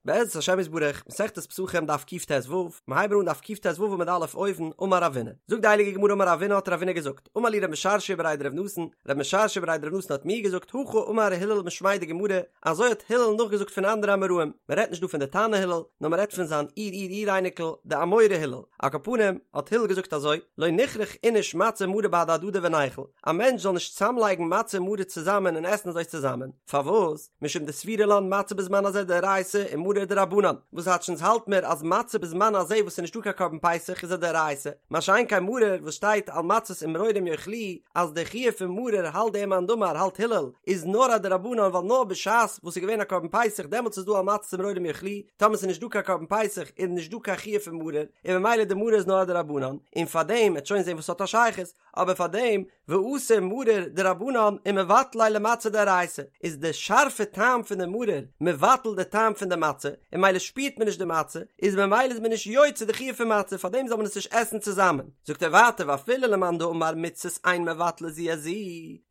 בעזרת השם יתברך, מסכת פסחים דף קט"ו, מיר הייבן אן דף קט"ו עמוד א' אויבן, אמר רבינא. זאגט די הייליגע גמרא אמר רבינא האט רבינא געזאגט, אמר לי רב משרשיא בריה דרב נתן, רב משרשיא בריה דרב נתן האט מיר געזאגט, הכי אמר הלל משמיה דגמרא, אזוי האט הלל נאכגעזאגט פון אנדערע אמוראים, מען רעדט נישט דא פון די תנא הלל, נאר מען רעדט פון זיין אור אור אור אייניקל, די אמורא הלל. על כל פנים, האט הלל געזאגט אזוי, לא נכרוך איניש מצה ומרור בהדי הדדי וניכול, א מענטש זאל נישט צאמלייגן מצה און מרור צוזאמען און עסן אזוי צוזאמען, פארוואס? משום דסבירא לן מצה בזמן הזה דאורייתא ומרור דרבנן, וואס טייטש אונז האלט מיר אז מצה בזמן הזה וואס ס'איז נישטא קיין קרבן פסח איז א דאורייתא, מה שאין כן מרור וואס שטייט על מצות ומרורים יאכלוהו אז די חיוב פון מרור האלט דער מאן דאמר האלט הלל איז נאר א דרבנן ווייל נאר בשעת וואס ס'איז געווען א קרבן פסח דעמאלטס איז דא על מצות ומרורים יאכלוהו, טאמער ס'איז נישט דא קיין קרבן פסח איז נישט דא קיין חיוב פון מרור און ממילא די מרור איז נאר א דרבנן, און פארדעם מ'עט שוין זען וואס ס'האט א שייכות, אבער פאר דעם ואתי מרור דרבנן ומבטל ליה למצה דאורייתא, איז די שארפע טעם פון די מרור מבטל די טעם פון די מצה, און ממילא שפירט מען נישט די מצה, איז ממילא איז מען נישט יוצא די חיוב פון מצה, פאר דעם זאל מען עס נישט עסן צוזאמען. זאגט ער ווייטער ואפילו למאן דאמר מצות אין מבטלות זו את זו,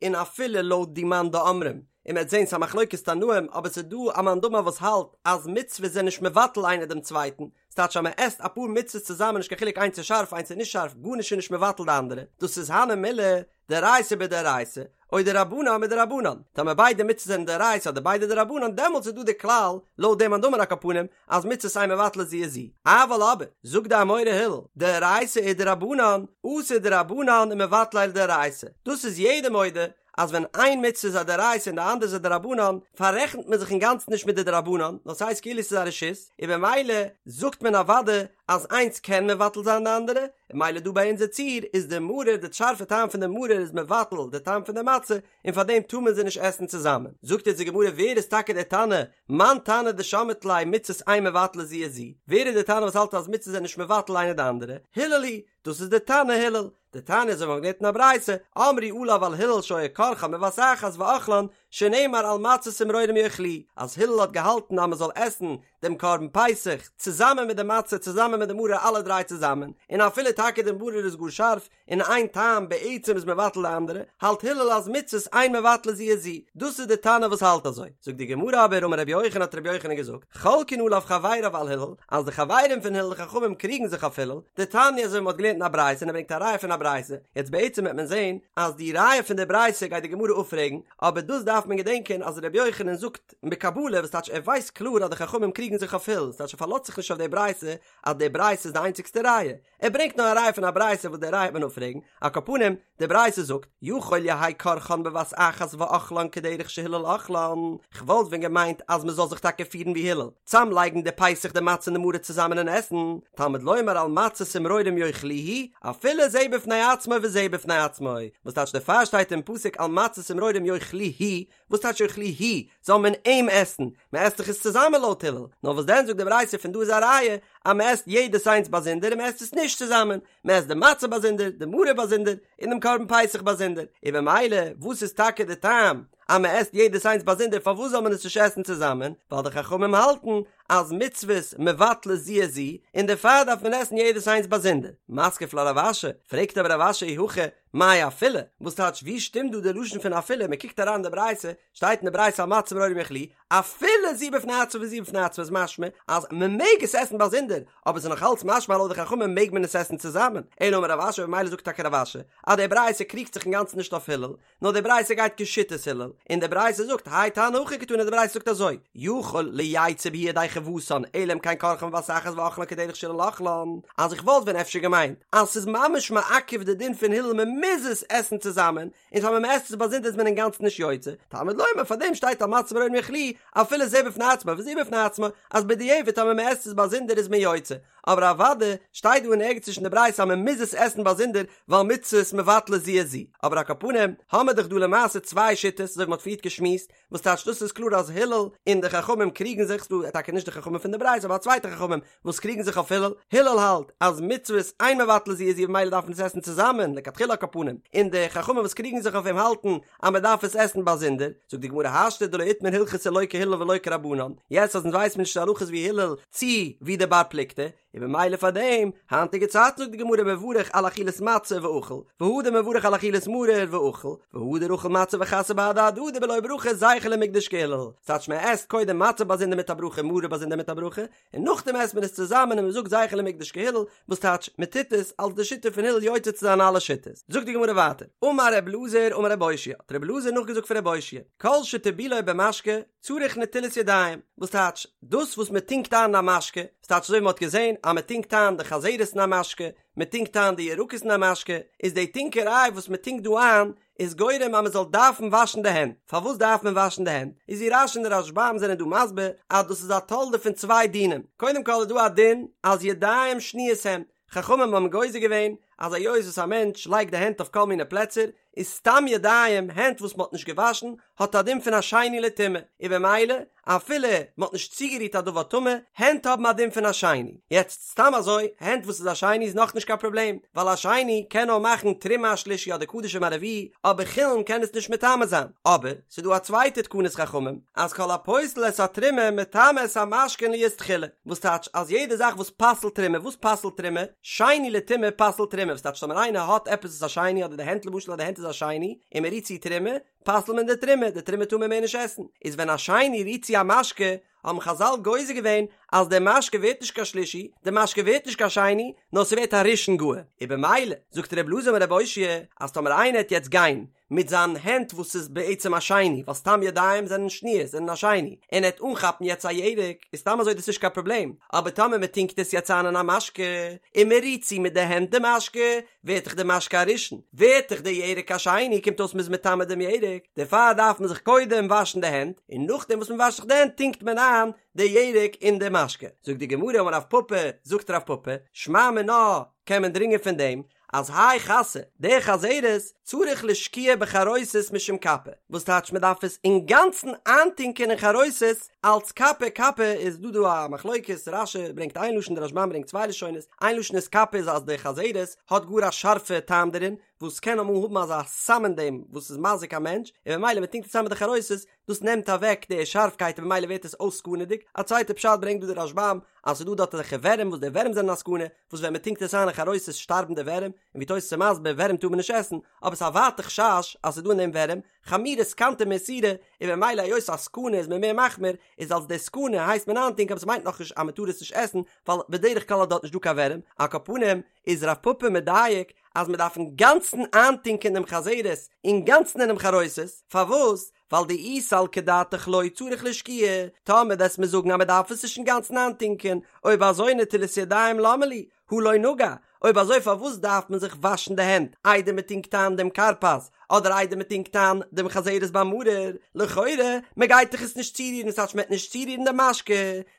און אפילו לויט די מאן דאמרים, און מ'עט זען ס'איז א מחלוקת תנאים, אבער ס'איז דא א מאן דאמר וואס האלט אז מצוות זענען נישט מבטל איינער דעם צווייטן, ס'טייטש אז מ'עסט אפאר מצות צוזאמען נישט קיין חילוק איינס איז שארף איינס איז נישט שארף גארנישט איז נישט מבטל די אנדערע דאס איז הני מילי דאורייתא בדאורייתא או דרבנן בדרבנן טאמער ביידע מצות זענען דאורייתא אדער ביידע דרבנן דעמאלטס איז דא די כלל לויט דעם מאן דאמר על כל פנים אז מצות אין מבטלות זו את זו אבל אבער זאגט די אמורא הלל דאורייתא ודרבנן אתי דרבנן ומבטל ליה לדאורייתא דאס איז יעדער מודה אז ווען איין מצוה איז א דאורייתא און די אנדערע איז א דרבנן, פאררעכנט מען זיך אינגאנצן נישט מיט די דרבנן, נאר ס'הייסט כאילו ס'איז א רשות, און במילא זאגט מען אוודאי אז איינס קען מבטל זיין די אנדערע, און ממילא דא ביי אונזער ציור איז די מרור, די שארפע טעם פון די מרור איז מבטל די טעם פון די מצה, און פארדעם טאר מען זיי נישט עסן צוזאמען. זאגט יעצט די גמרא ווער איז טאקע דער תנא, מאן תנא דשמעת ליה מצות אין מבטלות זו את זו, ווער איז דער תנא וואס האלט אז מצות זענען נישט מבטל איינע די אנדערע, הלל היא, דאס איז דער תנא הלל, דתניא אזוי ווי מ'האט געלערנט אין א ברייתא, אמרו עליו על הלל שהיה כורכן בבת אחת ואוכלן, שנאמר על מצות ומרורים יאכלוהו, אז הלל האט געהאלטן אז מ'זאל עסן דעם קרבן פסח צוזאמען מיט די מצה צוזאמען מיט די מרור אלע דריי צוזאמען, און אפילו טאקע די מרור איז גאר שארף און איין טעם בעצם איז מבטל די אנדערע, האלט הלל אז מצות אין מבטלות זו את זו, דאס איז די תנא וואס האלט אזוי. זאגט די גמרא אבער אמר רבי יוחנן האט רבי יוחנן געזאגט, חולקין עליו חבריו על הלל, אז די חברים פון הלל די חכמים קריגן זיך אויף הלל, דתניא אזוי ווי מ'האט געלערנט אין א ברייתא און ער ברענגט א ראיה פון א ברייתא, יעצט בעצם וועט מען זען אז די ראיה פון די ברייתא גייט די גמרא אפפרעגן, אבער דאס דארף מען געדענקען אז רבי יוחנן זאגט בקבלה וואס טייטש ער ווייסט קלאר אז די חכמים קריגן זיך אויף הלל, ס'טייטש ער פארלאזט זיך נישט אויף די ברייתא אז די ברייתא איז די איינציגסטע ראיה, ער ברענגט נאר א ראיה פון א ברייתא וואס די ראיה וועט מען אפפרעגן, על כל פנים, די ברייתא זאגט, יכול יהא כורכן בבת אחת ואוכלן כדרך שהלל אוכלן, כ'וואלט ווען געמיינט אז מ'זאל זיך טאקע פירן ווי הלל, צאמלייגן די פסח די מצה און די מרור צוזאמען און עסן, תלמוד לומר על מצות ומרורים יאכלוהו, אפילו זה בפני עצמו וזה בפני עצמו, וואס טייטש דערפאר שטייט אין פסוק על מצות ומרורים יאכלוהו, וואס טייטש יאכלוהו? זאל מען אים עסן? מען עסט דאך עס צוזאמען לויט הלל. נאר וואס דען זאגט די ברייתא פון דא איז א ראיה אז מען עסט יעדעס איינס באזונדער און מען עסט עס נישט צוזאמען, מען עסט די מצה באזונדער, די מרור באזונדער, און דעם קרבן פסח באזונדער. און במילא וואס איז טאקע די טעם אז מען עסט יעדעס איינס באזונדער פארוואס זאל מען עס נישט עסן צוזאמען? ווייל די חכמים האלטן אז מצוות מבטלות זו את זו, און דערפאר דארף מען עסן יעדעס איינס באזונדער. מתקיף לה רב אשי, פרעגט אבער רב אשי אי הכי, מאי אפילו? וואס טייטש ווי שטימט דא די לשון פון אפילו? מען קוקט אריין אין די ברייתא, שטייט אין די ברייתא על מצות ומרורים יאכלוהו, אפילו זו בפני עצמה וזו בפני עצמה איז משמע אז מען מעג עס עסן באזונדער, אבער ס'איז נאך אלץ משמע לויט די חכמים מעג מען עס עסן צוזאמען, אלא אמר רב אשי במילא זאגט טאקע רב אשי אז די ברייתא קריגט זיך אינגאנצן נישט אויף הלל, נאר די ברייתא גייט כשיטת הלל, און די ברייתא זאגט האי תנא הכי קתני די ברייתא זאגט אזוי, יכול לא יצא בהו ידי חובתן אלא אם כן כורכן בבת אחת ואוכלן כדרך שהלל אוכלן, אז איך וואלט ווען אפשר געמיינט אז ס'איז ממש מעכב די דין פון הלל מען מוז עס עסן צוזאמען, און טאמער מען עסט עס באזונדער איז מען אינגאנצן נישט יוצא, תלמוד לומר פאר דעם שטייט על מצות ומרורים יאכלוהו אפילו זה בפני עצמו וזה בפני עצמו, אז בדיעבד טאמער מען עסט עס באזונדער איז מען יוצא, אבער אוודאי שטייט דא אין ערגעץ נישט אין די ברייתא אז מען מוז עס עסן באזונדער ווייל מצות מבטלות זו את זו, אבער על כל פנים האמער דאך דא למעשה צוויי שיטות אזוי ווי מען האט פריערט געשמועסט, וואס טייטש דאס איז קלאר אז הלל און די חכמים קריגן זיך, ס'דא טאקע נישט די חכמים פון די ברייתא אבער א צווייטע חכמים וואס קריגן זיך אויף הלל, הלל האלט אז מצוות אין מבטלות זו את זו ממילא דארף מען עס עסן צוזאמען לכתחילה על כל פנים, און די חכמים וואס קריגן זיך אויף אים האלטן אז מען דארף עס עסן באזונדער, זאגט די גמרא השתא דלא איתמר הלכתא לא כהלל ולא כרבנן, יעצט אז אונז ווייסן מיר נישט די הלכה איז ווי הלל צי ווי די בר פלוגתא. און במילא פאר דעם, היינטיגע צייטן זאגט די גמרא מברך על אכילת מצה ואכיל, והדר מברך על אכילת מרור ואכיל, והדר אכיל מצה וחסא בהדי הדדי בלא ברכה זכר למקדש כהלל, ס'טייטש מען עסט קודם מצה באזונדער מיט א ברכה מרור באזונדער מיט א ברכה, און נאכדעם עסט מען עס צוזאמען און מען זאגט זכר למקדש כהלל, וואס טייטש מען טוט עס אלס די שיטה פון הלל יוצא צו זיין אלע שיטות. זאגט די גמרא ווייטער, אמר ר' אלעזר אמר ר' אושעיא, האט ר' אלעזר נאכגעזאגט פון ר' אושעיא, כל שטיבולו במשקה צריך נטילת ידיים, וואס טייטש דאס וואס מען טונקט איין אין א משקה, וואס טייטש אזוי ווי מען האט געזען אז מען טונקט איין די חזרת אין א משקה, מען טונקט איין די ירקות אין א משקה, איז די טונקעריי וואס מען טונקט דא איין איז גורם אז מען זאל דארפן וואשן די הענט, פארוואס דארף מען וואשן די הענט? איז ווי רש"י און די רשב"ם זענען דא מסביר אז דאס איז א תולדה פון צוויי דינים, קודם כל איז דא א דין אז ידיים שניות הן, חכמים האבן גוזר געווען אז היות וואס א מענטש לייגט די הענט אויף כל מיני פלעצער, איז סתם ידיים, הענט וואס מען האט נישט געוואשן, האט א דין פון א שני לטומאה, און במילא אפילו מען האט נישט צוגערירט א דבר טמא, הענט האבן א דין פון א שני. יעצט סתם אזוי, הענט וואס איז א שני איז נאכנישט קיין פראבלעם, ווייל א שני קען נאר מאכן תרומה א שלישי אדער קדשים א רביעי, אבער חולין קען עס נישט מטמא זיין. אבער, ס'איז דא א צווייטע תקנת חכמים, אז כל הפוסל את התרומה מטמא את המשקין להיות תחילה, וואס טייטש אז יעדע זאך וואס פסל'ט תרומה, וואס פסל'ט תרומה? שני לטומאה פסל'ט תרומה, וואס טייטש טאמער איינער האט עפעס וואס איז א שני אדער די הענט למשל אז די הענט איז א שני און מען רירט צו תרומה, פסל'ט מען די תרומה, די תרומה טאר מען מער נישט עסן, איז ווען א שני רירט צו א משקה, האבן חזל גוזר געווען אז די משקה ווערט נישט קיין שלישי, די משקה ווערט נישט קיין שני, נאר ס'ווערט א ראשון גאר, און במילא זאגט ר' אלעזר אמר ר' אושעיא אז טאמער איינער העט יעצט גיין מיט זיין הענט וואס איז בעצם א שני, ווייל סתם ידיים זענען שניות, זענען א שני, און ער העט אנכאפן יעצט א ירק, איז סתם אזוי דאס נישט קיין פראבלעם, אבער טאמער מען טונקט עס יעצט איין אין א משקה, און מען רירט צו מיט די הענט די משקה, ווערט דאך די משקה א ראשון, ווערט דאך די ירק א שני, קומט אויס מ'איז מטמא דעם ירק, דערפאר דארף מען זיך קודם וואשן די הענט, און נאכדעם וואס מען וואשט זיך די הענט טונקט מען איין די ירק אין די משקה. זאגט די גמרא אמר רב פפא, זאגט רב פפא, שמע מינה, קען מען דרינגען פון דעם, אז האי חסא, די חזרת, צריך לשקועה בחרוסת משום קפא, וואס טייטש מען דארף עס אינגאנצן איינטונקען אין חרוסת אלץ קפא, קפא איז דא דא א מחלוקת, רש"י ברענגט איין לשון די רשב"ם ברענגט צוויי לשונות, איין לשון איז קפא איז אז די חזרת האט גאר א שארפע טעם דערין, וואס קען אמאל האבן אזא סם אין דעם וואס איז מזיק א מענטש, און ממילא מען טונקט עס איין מיט די חרוסת, דאס נעמט אוועק די שארפקייט און ממילא ווערט עס אויס סכנה'דיג, א צווייטע פשט ברענגט דא די רשב"ם אז ס'איז דא דארט אזעלכע ווערים וואס די ווערים זענען א סכנה, וואס ווען מ'טונקט עס איין אין חרוסת שטארבן די ווערים, און ווי תוס' איז מסביר ווערים טאר מען נישט עסן, אבער ס'איז א ווייטע חשש אז ס'איז דא אין דעם ווערים, חמירא סכנתא מאיסורא, און ממילא היות א סכנה איז מען מער מחמיר, איז אלס די סכנה הייסט מען איינטונקען אבער ס'מיינט נאכנישט אז מ'טאר עס נישט עסן, ווייל בדרך כלל איז דארט נישט דא קיין ווערים, על כל פנים איז רב פפא מדייק אז מ'דארף אינגאנצן איינטונקען דעם חזרת אינגאנצן אינעם חרוסת, פארוואס? ווייל דאי סלקא דעתך לא צריך לשקועה, טאמער וועסט מיר זאגן אז מען דארף עס נישט אינגאנצן איינטונקען, אויב אזוי נטילת ידיים למה לי, הא לא נגע, אויב אזוי פארוואס דארף מען זיך וואשן די הענט איידער מען טונקט איין דעם כרפס, אדער איידער מען טונקט איין דעם חזרת ביי מרור, לכאורה, מען גייט דאך עס נישט צורירן, ס'טייטש מען וועט נישט צורירן די משקה,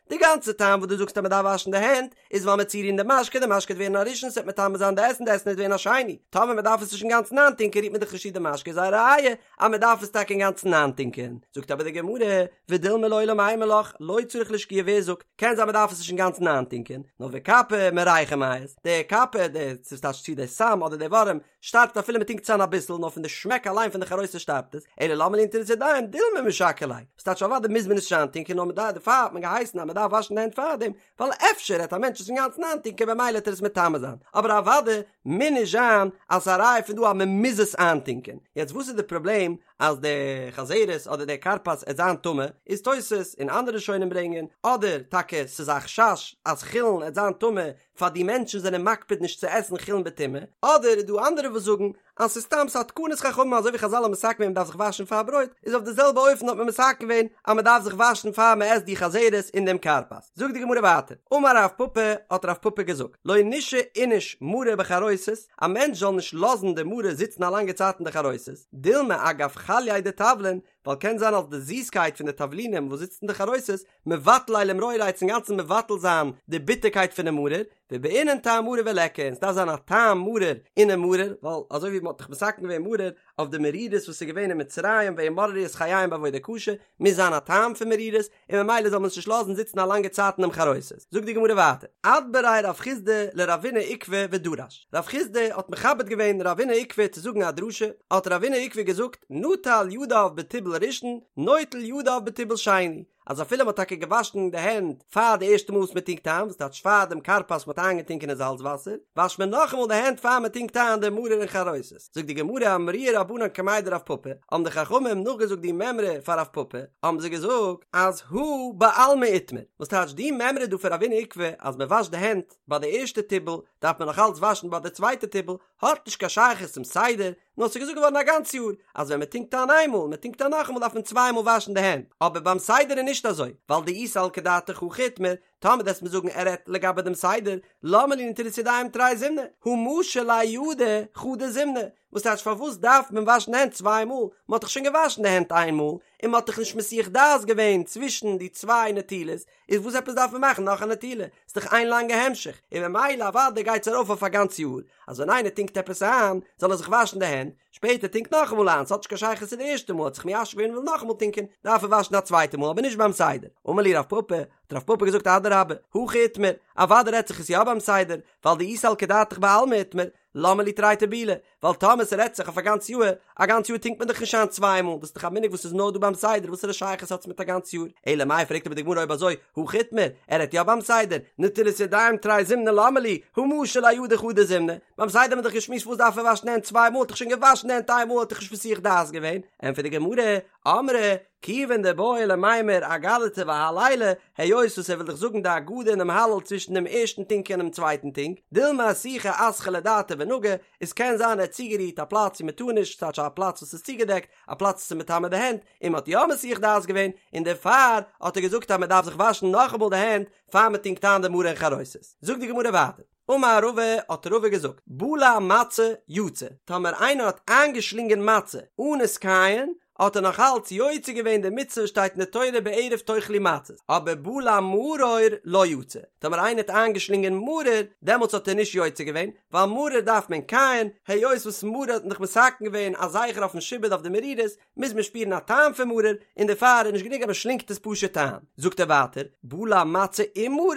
די גאנצע טעם וואס דו זאגסט אז מען דארף וואשן די הענט איז ווייל מ'עט צורירן די משקה, די משקה וועט ווערן א ראשון, ס'וועט מטמא זיין די עסן, די עסן וועט ווערן א שני, טאמער מען דארף עס נישט אינגאנצן איינטונקען רירט מען דאך נישט צו די משקה איז א ראיה אז מען דארף עס טאקע אינגאנצן איינטונקען, זאגט אבער די גמרא, ודילמא לעולם אימא לך, לא צריך לשקועה ווער זאגט, קען זיין מען דארף עס נישט אינגאנצן איינטונקען, נאר וקפא מריחא מיית, די קפא, די ס'טייטש צו די סם אדער די ווארעם, שטארבט אפילו מען טונקט עס איין אביסל, נאר פון די שמעק אליין פון די חרוסת שטארבט עס, אלא למה לי נטילת ידיים, דילמא משקר ליה, וואס טייטש אוודאי מוז מען עס נישט איינטונקען נאר מען דארף דערפאר האט מען געהייסן אז מען דארף וואשן די הענט פארדעם, ווייל אפשר העט א מענטש עס אינגאנצן איינטונקען במילא העט ער עס מטמא זיין, אבער אוודאי מוז נישט זיין אז ס'איז א ראיה פון דא אז מען מוז עס איינטונקען, יעצט וואס איז די פראבלעם אז די חזרת אדער די כרפס עט זיין טמא, איז תוס' און אנדערע ראשונים ברענגען, אדער טאקע ס'איז א חשש אז חולין עט זיין טמא פאר די מענטשן זענען מקפיד נישט צו עסן חולין בטומאה, אדער איז דא אנדערע וואס זאגן אז ס'איז סתם ס'א תקנת חכמים אזוי ווי חזל האבן מתקן געווען מ'דארף זיך וואשן פאר ברויט, איז אויף די זעלבע אופן האט מען מתקן געווען אז מ'דארף זיך וואשן פאר מ'עסט די חזרת און דעם כרפס. זאגט די גמרא ווייטער, אמר רב פפא, האט רב פפא געזאגט, לא נישהי איניש מרור בחרוסת, א מענטש זאל נישט לאזן די מרור זיצן א לאנגע צייט אין די חרוסת, דילמא אגב חלייה דתבלין, ווייל קען זיין אז די זיסקייט פון די תבלינים וואס זיצט אין די חרוסת, מבטל ליה למרוריה עט אינגאנצן מבטל זיין די ביטערקייט פונעם מרור, ובעינן טעם מרור וליכא, און ס'דארף זיין א טעם מרור אינעם מרור, ווייל אזוי ווי מ'האט דאך מתקן געווען מרור אויף די מרירות וואס איז געווען אין מצרים וימררו את חייהם בעבודה קשה, מוז זיין א טעם פון מרירות, און ממילא זאל מען עס נישט לאזן זיצן א לאנגע צייט אינעם חרוסת. זאגט די גמרא ווייטער, אדבריה רב חסדא לרבינא עוקבא ודרש, רב חסדא האט מכבד געווען רבינא עוקבא צו זאגן א דרשה, האט רבינא עוקבא געזאגט, נטל ידיו בטיבול ראשון, נוטל ידיו בטיבול שני, אז אפילו מ'האט טאקע געוואשן די הענט פאר די ערשטע מאל וואס מ'טונקט איין, וואס טייטש פאר דעם כרפס מ'האט איינגעטונקען אין זאלץ וואסער, וואשט מען נאכאמאל די הענט פאר מ'טונקט איין די מרור און חרוסת. זאגט די גמרא אמרוה רבנן קמיה דרב פפא, האבן די חכמים נאכגעזאגט די מימרא פאר רב פפא, האבן זיי געזאגט אז הא בעלמא איתמר, וואס טייטש די מימרא דא פון רב הונא עוקבא אז מ'וואשט די הענט ביי די ערשטע טיבול דארף מען נאך אלץ וואשן ביי די צווייטע טיבול, האט נישט קיין שייכות צום סדר, נאר ס'איז געזאגט געווארן א גאנץ יאר אז ווען מ'טונקט איין איינמאל און מ'טונקט איין נאכאמאל דארף מען צוויי מאל וואשן די הענט, אבער ביים סדר איז נישט אזוי, ווייל דאי סלקא דעתך הכי איתמר, טאמער וועסט מיר זאגן ער רעדט לגבי דעם סדר, למה לי נטילת ידיים תרי זימני, הא משי ליה ידיה חדא זימנא, וואס טייטש פארוואס דארף מען וואשן די הענט צוויי מאל, מ'האט דאך שוין געוואשן די הענט איין מאל, און מ'האט דאך נישט מסיח דעת געווען צווישן די צוויי נטילות, איז וואס עפעס דארף מען מאכן נאך א נטילה? ס'איז דאך איין לאנגע המשך, און ממילא אוודאי גייט עס ארויף אויף א גאנץ יאר, אז ווען איינער טונקט עפעס איין, זאל ער זיך וואשן די הענט, שפעטער טונקט נאכאמאל איין, ס'האט נישט קיין שייכות צו די ערשטע מאל, האט זיך מיישב געווען און וויל נאכאמאל טונקען, דארף ער וואשן א צווייטע מאל, אבער נישט ביים סדר. אמר להו רב פפא, האט רב פפא געזאגט אדרבה, הכי איתמר, אוודאי רעדט זיך עס יא ביים סדר, ווייל דאי סלקא דעתך בעלמא איתמר, למה לי תרי טיבולי, ווייל טאמער ס'רעדט זיך אויף א גאנץ יאהר, א גאנץ יאר טונקט מען דאך נישט איין צוויי מאל, דאס איז דאך א מנהג וואס איז נאר דא ביים סדר, וואסערע שייכות האט עס מיט א גאנץ יאר? אלא מאי פרעגט אבער די גמרא אויב אזוי, הכי איתמר, ער רעדט יא ביים סדר, נטילת ידיים תרי זימני למה לי, הא משי ליה ידיה חדא זימנא, ביים סדר האט מען דאך געשמועסט וואס דארף ער וואשן די הענט צוויי מאל, האט דאך שוין געוואשן די הענט איין מאל האט דאך נישט מסיח דעת געווען, ענטפערט די גמרא, אמרי, כיוון דבעי למימר אגדתא והלילא, היות וואס ער וויל דאך זאגן די הגדה און דעם הלל צווישן דעם ערשטן טונק און דעם צווייטן טונק, דילמא אסוחי אסחה לדעתיה ונגע, עס קען זיין ער האט צוגערירט א פלאץ וואו מען טאר נישט, ס'טייטש א פלאץ וואס איז צוגעדעקט, א פלאץ וואס איז מטמא די הענט, און מען האט יא מסיח דעת געווען, און דערפאר האט ער געזאגט אז מען דארף זיך וואשן נאכאמאל די הענט פאר מען טונקט איין די מרור און חרוסת. זאגט די גמרא ווייטער. אמר רבא, האט רבא געזאגט, בלע מצה יצא, טאמער איינער האט איינגעשלינגען מצה אן עס קייען, האט ער נאך אלץ יוצא געווען די מצוה וואס שטייט אין די תורה בערב תאכלו מצות, אבער בלע מרור לא יצא, טאמער איינער האט איינגעשלינגען מרור, דעמאלטס האט ער נישט יוצא געווען, ווייל מרור דארף מען קייען, היות וואס מרור האט מען דאך מתקן געווען א זכר אויפן שעבוד אויף די מרירות, מוז מען שפירן א טעם פון מרור, און דערפאר איז נישט גענוג אז מען שלינגט עס פשוט איין. זאגט ער ווייטער, בלע מצה ומרור,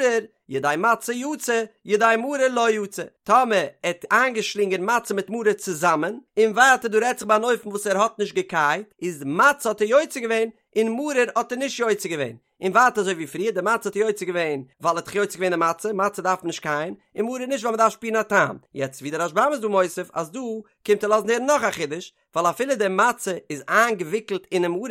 ידי מצה יצא, ידי מרור לא יצא. טאמער ער האט איינגעשלינגען מצה מיט מרור צוזאמען, און ווייטער דא רעדט זיך ביי אן אופן וואס ער האט נישט געקייט, איז מצה האט ער יוצא געווען, און מרור האט ער נישט יוצא געווען. און ווייטער אזוי ווי פריער, די מצה האט ער יוצא געווען ווייל ער האט דאך יוצא געווען די מצה, מצה דארף מען נישט קייען, און מרור נישט ווייל מען דארף שפירן א טעם. יעצט ווי דער רשב"ם איז דא מוסיף אז דא קומט ער לאזן הערן נאך א חידוש, ווייל אפילו די מצה איז איינגעוויקלט אינעם מרור,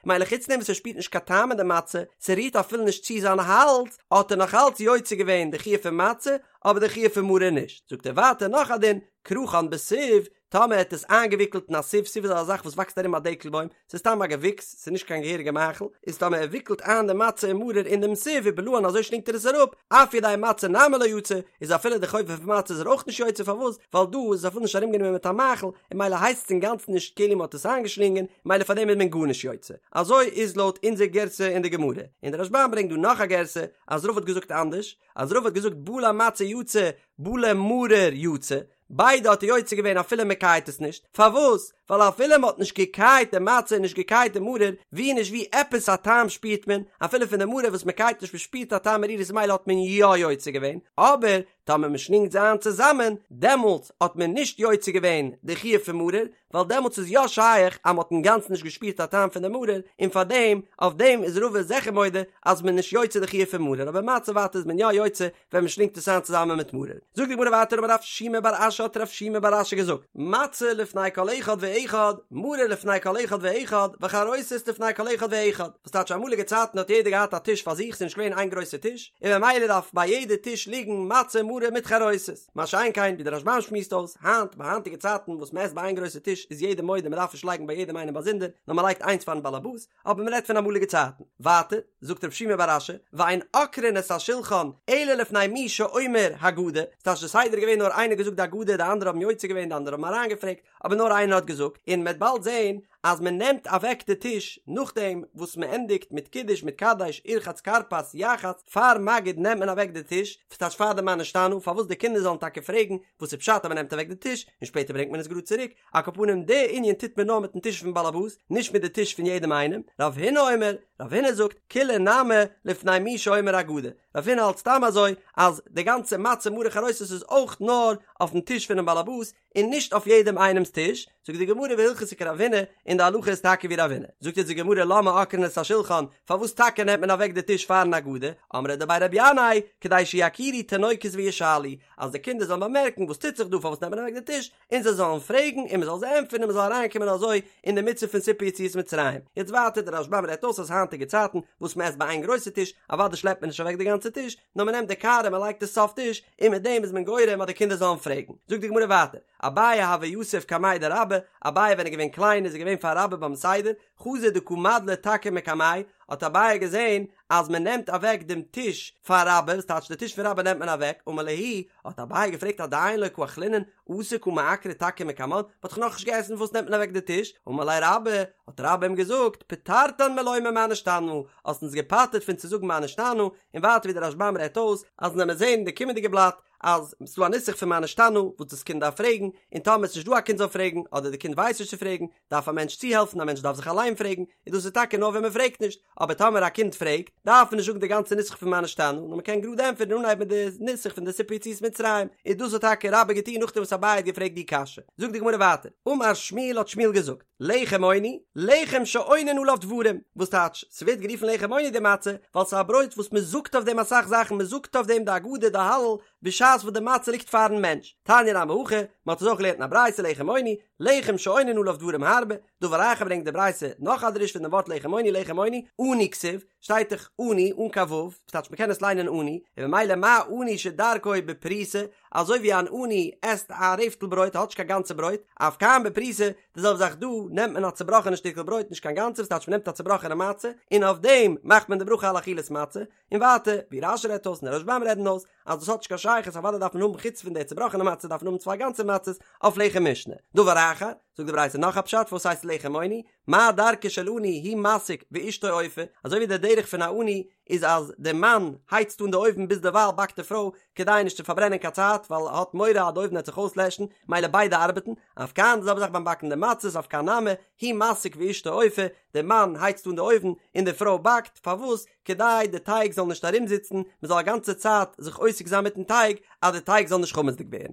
מילא חוץ דעם וואס ער שפירט נישט קיין טעם אין די מצה, ס'רירט אפילו נישט צו זיין האלז, האט ער נאך אלץ יוצא געווען די חיוב פון מצה, אבער די חיוב פון מרור נישט. זאגט ער ווייטער נאך א דין, כרכן בסיב, טאמער ער האט עס איינגעוויקלט אין א סיב, סיב איז א זאך וואס וואקסט ארום א דקל בוים, ס'איז סתם א געוויקס, ס'איז נישט קיין געהעריגע מאכל, איז טאמער ער וויקלט איין די מצה און מרור אין דעם סיב ובלען אזוי שלינגט ער עס אראפ, אף ידי מצה נמי לא יצא, איז אפילו די חובה פון מצה איז ער אויך נישט יוצא, פארוואס? ווייל דא איז עס אפילו נישט ארומגענומען מיט א מאכל, און מילא הייסט עס אינגאנצן נישט כאילו מ'האט עס איינגעשלינגען, מילא פאר דעם איז מען גארנישט יוצא. אזוי איז לויט אונזער גירסא אין די גמרא. און דער רשב"ם ברענגט דא נאך א גירסא, אז רבא האט געזאגט אנדערש, אז רבא האט געזאגט בלע מצה יצא, בלע מרור יצא, ביידע האט ער יוצא געווען אפילו מען קייט עס נישט, פארוואס? ווייל אפילו מען האט נישט געקייט די מצה און נישט געקייט די מרור, ווי נישט ווי עפעס א טעם שפירט מען, אפילו פון די מרור וואס מען קייט נישט מען שפירט א טעם מרירות מילא האט מען יא יוצא געווען, אבער טאמער מען שלינגט זיי איין צוזאמען, דעמאלטס האט מען נישט יוצא געווען די חיוב פון מרור, ווייל דעמאלטס איז יא שייך אז מען האט אינגאנצן נישט געשפירט א טעם פון די מרור, און פארדעם, אויף דעם איז רבא זיכער מודה אז מען איז נישט יוצא די חיוב פון מרור, אבער מצה ווייטער איז מען יא יוצא ווען מען שלינגט עס איין צוזאמען מיט מרור. זאגט די גמרא ווייטער אמר רב שימי בר אשי האט רב שימי בר אשי געזאגט, מצה לפני כל אחד ואחד, מרור לפני כל אחד ואחד, וחרוסת לפני כל אחד ואחד. וואס טייטש אמאליגע צייטן האט יעדער געהאט א טיש פאר זיך, ס'איז נישט געווען איין גרויסע טיש, און ממילא דארף ביי יעדע טיש ליגן מצה מרור מיט חרוסת. מה שאין כן ווי דער רשב"ם שמועסט אויס, היינט ביי היינטיגע צייטן וואס מען עסט ביי איין גרויסע טיש איז יעדער מודה מען דארף נישט לייגן ביי יעדעם איינעם באזונדער, נאר מען לייגט איינס פארן באלעבאס, אבער מען רעדט פון אמאליגע צייטן. ווייטער, זאגט רב שימי בר אשי, ואין עוקרין את השולחן אלא לפני מי שאומר הגדה, ס'טייטש די סדר איז געווען נאר איינער געזאגט די הגדה די אנדערע האבן יוצא געווען די אנדערע האבן אריינגעפרעגט, אבער נאר איינער האט געזאגט, און מ'עט באלד זען אז מען נעמט אוועק די טיש נאכדעם וואס מען ענדיגט מיט קידוש מיט קדש ורחץ כרפס יחץ, פאר מגיד נעמט מען אוועק די טיש, ס'טייטש פאר די מה נשתנה, פארוואס די קינדער זאלן טאקע פרעגן וואס איז פשט אז מען נעמט אוועק די טיש, און שפעטער ברענגט מען עס גראד צוריק, על כל פנים די ענין טוט מען נאר מיטן טיש פון באלעבאס, נישט מיט די טיש פון יעדעם איינעם, רב הונא אומר, רב הונא זאגט, כולה נמי לפני מי שאומר הגדה, רב הונא האלט סתם אזוי אז די גאנצע מצה מרור חרוסת איז אויך נאר אויפן טיש פונעם באלעבאס און נישט אויף יעדעם איינעמס טיש, זאגט די גמרא והלכתא כרב הונא, און די הלכה איז טאקע ווי רב הונא. זאגט אונז די גמרא למה עוקרין את השולחן, פארוואס טאקע נעמט מען אוועק די טיש פארן הגדה, אמרי דבי רבי ינאי, כדי שיכירו תינוקות וישאלו, אז די קינדער זאלן באמערקן וואס טוט זיך דא פארוואס נעמט מען אוועק די טיש, און זיי זאלן פרעגן און מען זאל זיי ענטפערן און מען זאל אריינקומען אזוי אין די מצוה פון סיפור יציאת מצרים. יעצט ווייטער דער רשב"ם רעדט אויס אז היינטיגע צייטן וואס מען עסט ביי איין גרויסע טיש, אוודאי שלעפט מען נישט אוועק די גאנצע טיש, נאר מען נעמט די קערה מען לייגט עס סוף טיש, און מיט דעם איז מען גורם אז די קינדער זאלן פרעגן. זאגט די גמרא ווייטער, אביי הוה יתיב קמיה דרבה, אביי ווען ער איז געווען קליין איז ער געווען פאר רבה ביים סדר, חזא דקא מדלי תכא מקמיה, האט אביי געזען אז מען נעמט אוועק דעם טיש פאר רבה, וואס טייטש די טיש פון רבה נעמט מען אוועק, אמר להו, האט אביי געפרעגט עדיין לא קא אכלינן, אתו קא מעקרי תכא מקמן, מען האט דאך נאכנישט געעסן פארוואס נעמט מען אוועק די טיש, אמר ליה רבה, האט רבה אים געזאגט, פטרתן מלומר מה נשתנה, האסט אונז געפטר'ט פון צו זאגן מה נשתנה, און ווייטער ווי דער רשב"ם רעדט אויס, אז ווען מיר זעהן אין די קומענדיגע בלאט אז ס'דא א נוסח פון מה נשתנה וואס דאס קינד דארף פרעגן, און טאמער ס'נישט דא א קינד זאל פרעגן, אדער די קינד ווייסט נישט צו פרעגן, דארף א מענטש צוהעלפן, א מענטש דארף זיך אליין פרעגן, און דאס איז טאקע נאר ווען מען פרעגט נישט, אבער טאמער א קינד פרעגט, דארף מען נישט זאגן די גאנצע נוסח פון מה נשתנה, נאר מען קען גראד ענטפערן און אנהייבן מיט די נוסח פון די סיפור יציאת מצרים, און דאס האט טאקע רבה געטון נאכדעם וואס אביי האט געפרעגט די קשיא. זאגט די גמרא ווייטער, אמר שמואל האט שמואל געזאגט, לחם עוני, לחם שעונין עליו דברים, וואס טייטש, ס'ווערט גערופן לחם עוני די מצה, ווייל ס'איז א ברויט וואס מען זאגט אויף דעם אסאך זאכן, מען זאגט אויף דעם די הגדה, די הלל, בשעת וואס די מצה ליגט פארן מענטש. תניא נמי הכי, מען האט עס אויך געלערנט אין א ברייתא לחם עוני, לחם שעונין עליו דברים הרבה, דבר אחר ברענגט די ברייתא נאך א דרוש פון דעם ווארט לחם עוני, לחם עוני, עני כתיב, שטייט דאך עני אן קיין ו', וואס טייטש מ'קען עס ליינען עני, און ממילא מה עני שדרכו בפרוסה, אזוי ווי אן עני עסט א רעפטל ברויט האט נישט קיין גאנצע ברויט, אף כאן בפרוסה, די זעלבע זאך דא, נעמט מען א צובראכענע שטיקל ברויט נישט קיין גאנצע, וואס טייטש מ'נעמט א צובראכענע מצה, און אויף דעם מאכט מען די ברכה על אכילת מצה, און ווייטער, ווי רש"י רעדט אויס און די רשב"ם רעדן אויס, אז דאס האט נישט קיין שייכות אוודאי דארף מען האבן חוץ פון די צובראכענע מצה דארף מען האבן צוויי גאנצע מצות אויף לחם משנה. דבר אחר, זאגט די ברייתא נאך א פשט פארוואס הייסט לחם עוני, מה דרכו של עני הוא מסיק ואשתו אופה, אזוי ווי דער דרך פון א עני איז אז דער מאן הייצט אן די אויוון ביז דערווייל באקט די פרוי כדי נישט צו פארברענען קיין צייט ווייל ער האט מורא אז די אויוון וועט זיך אויסלעשן, מילא ביידע ארבעטן, אף כאן די זעלבע זאך ביים באקן די מצות אף כאן נמי, הוא מסיק ואשתו אופה, דער מאן הייצט אן די אויוון און די פרוי באקט, פארוואס? כדי די טייג זאל נישט ארומזיצן, מען זאל א גאנצע צייט זיך עוסק זיין מיטן טייג אז די טייג זאל נישט חמצ'דיג ווערן.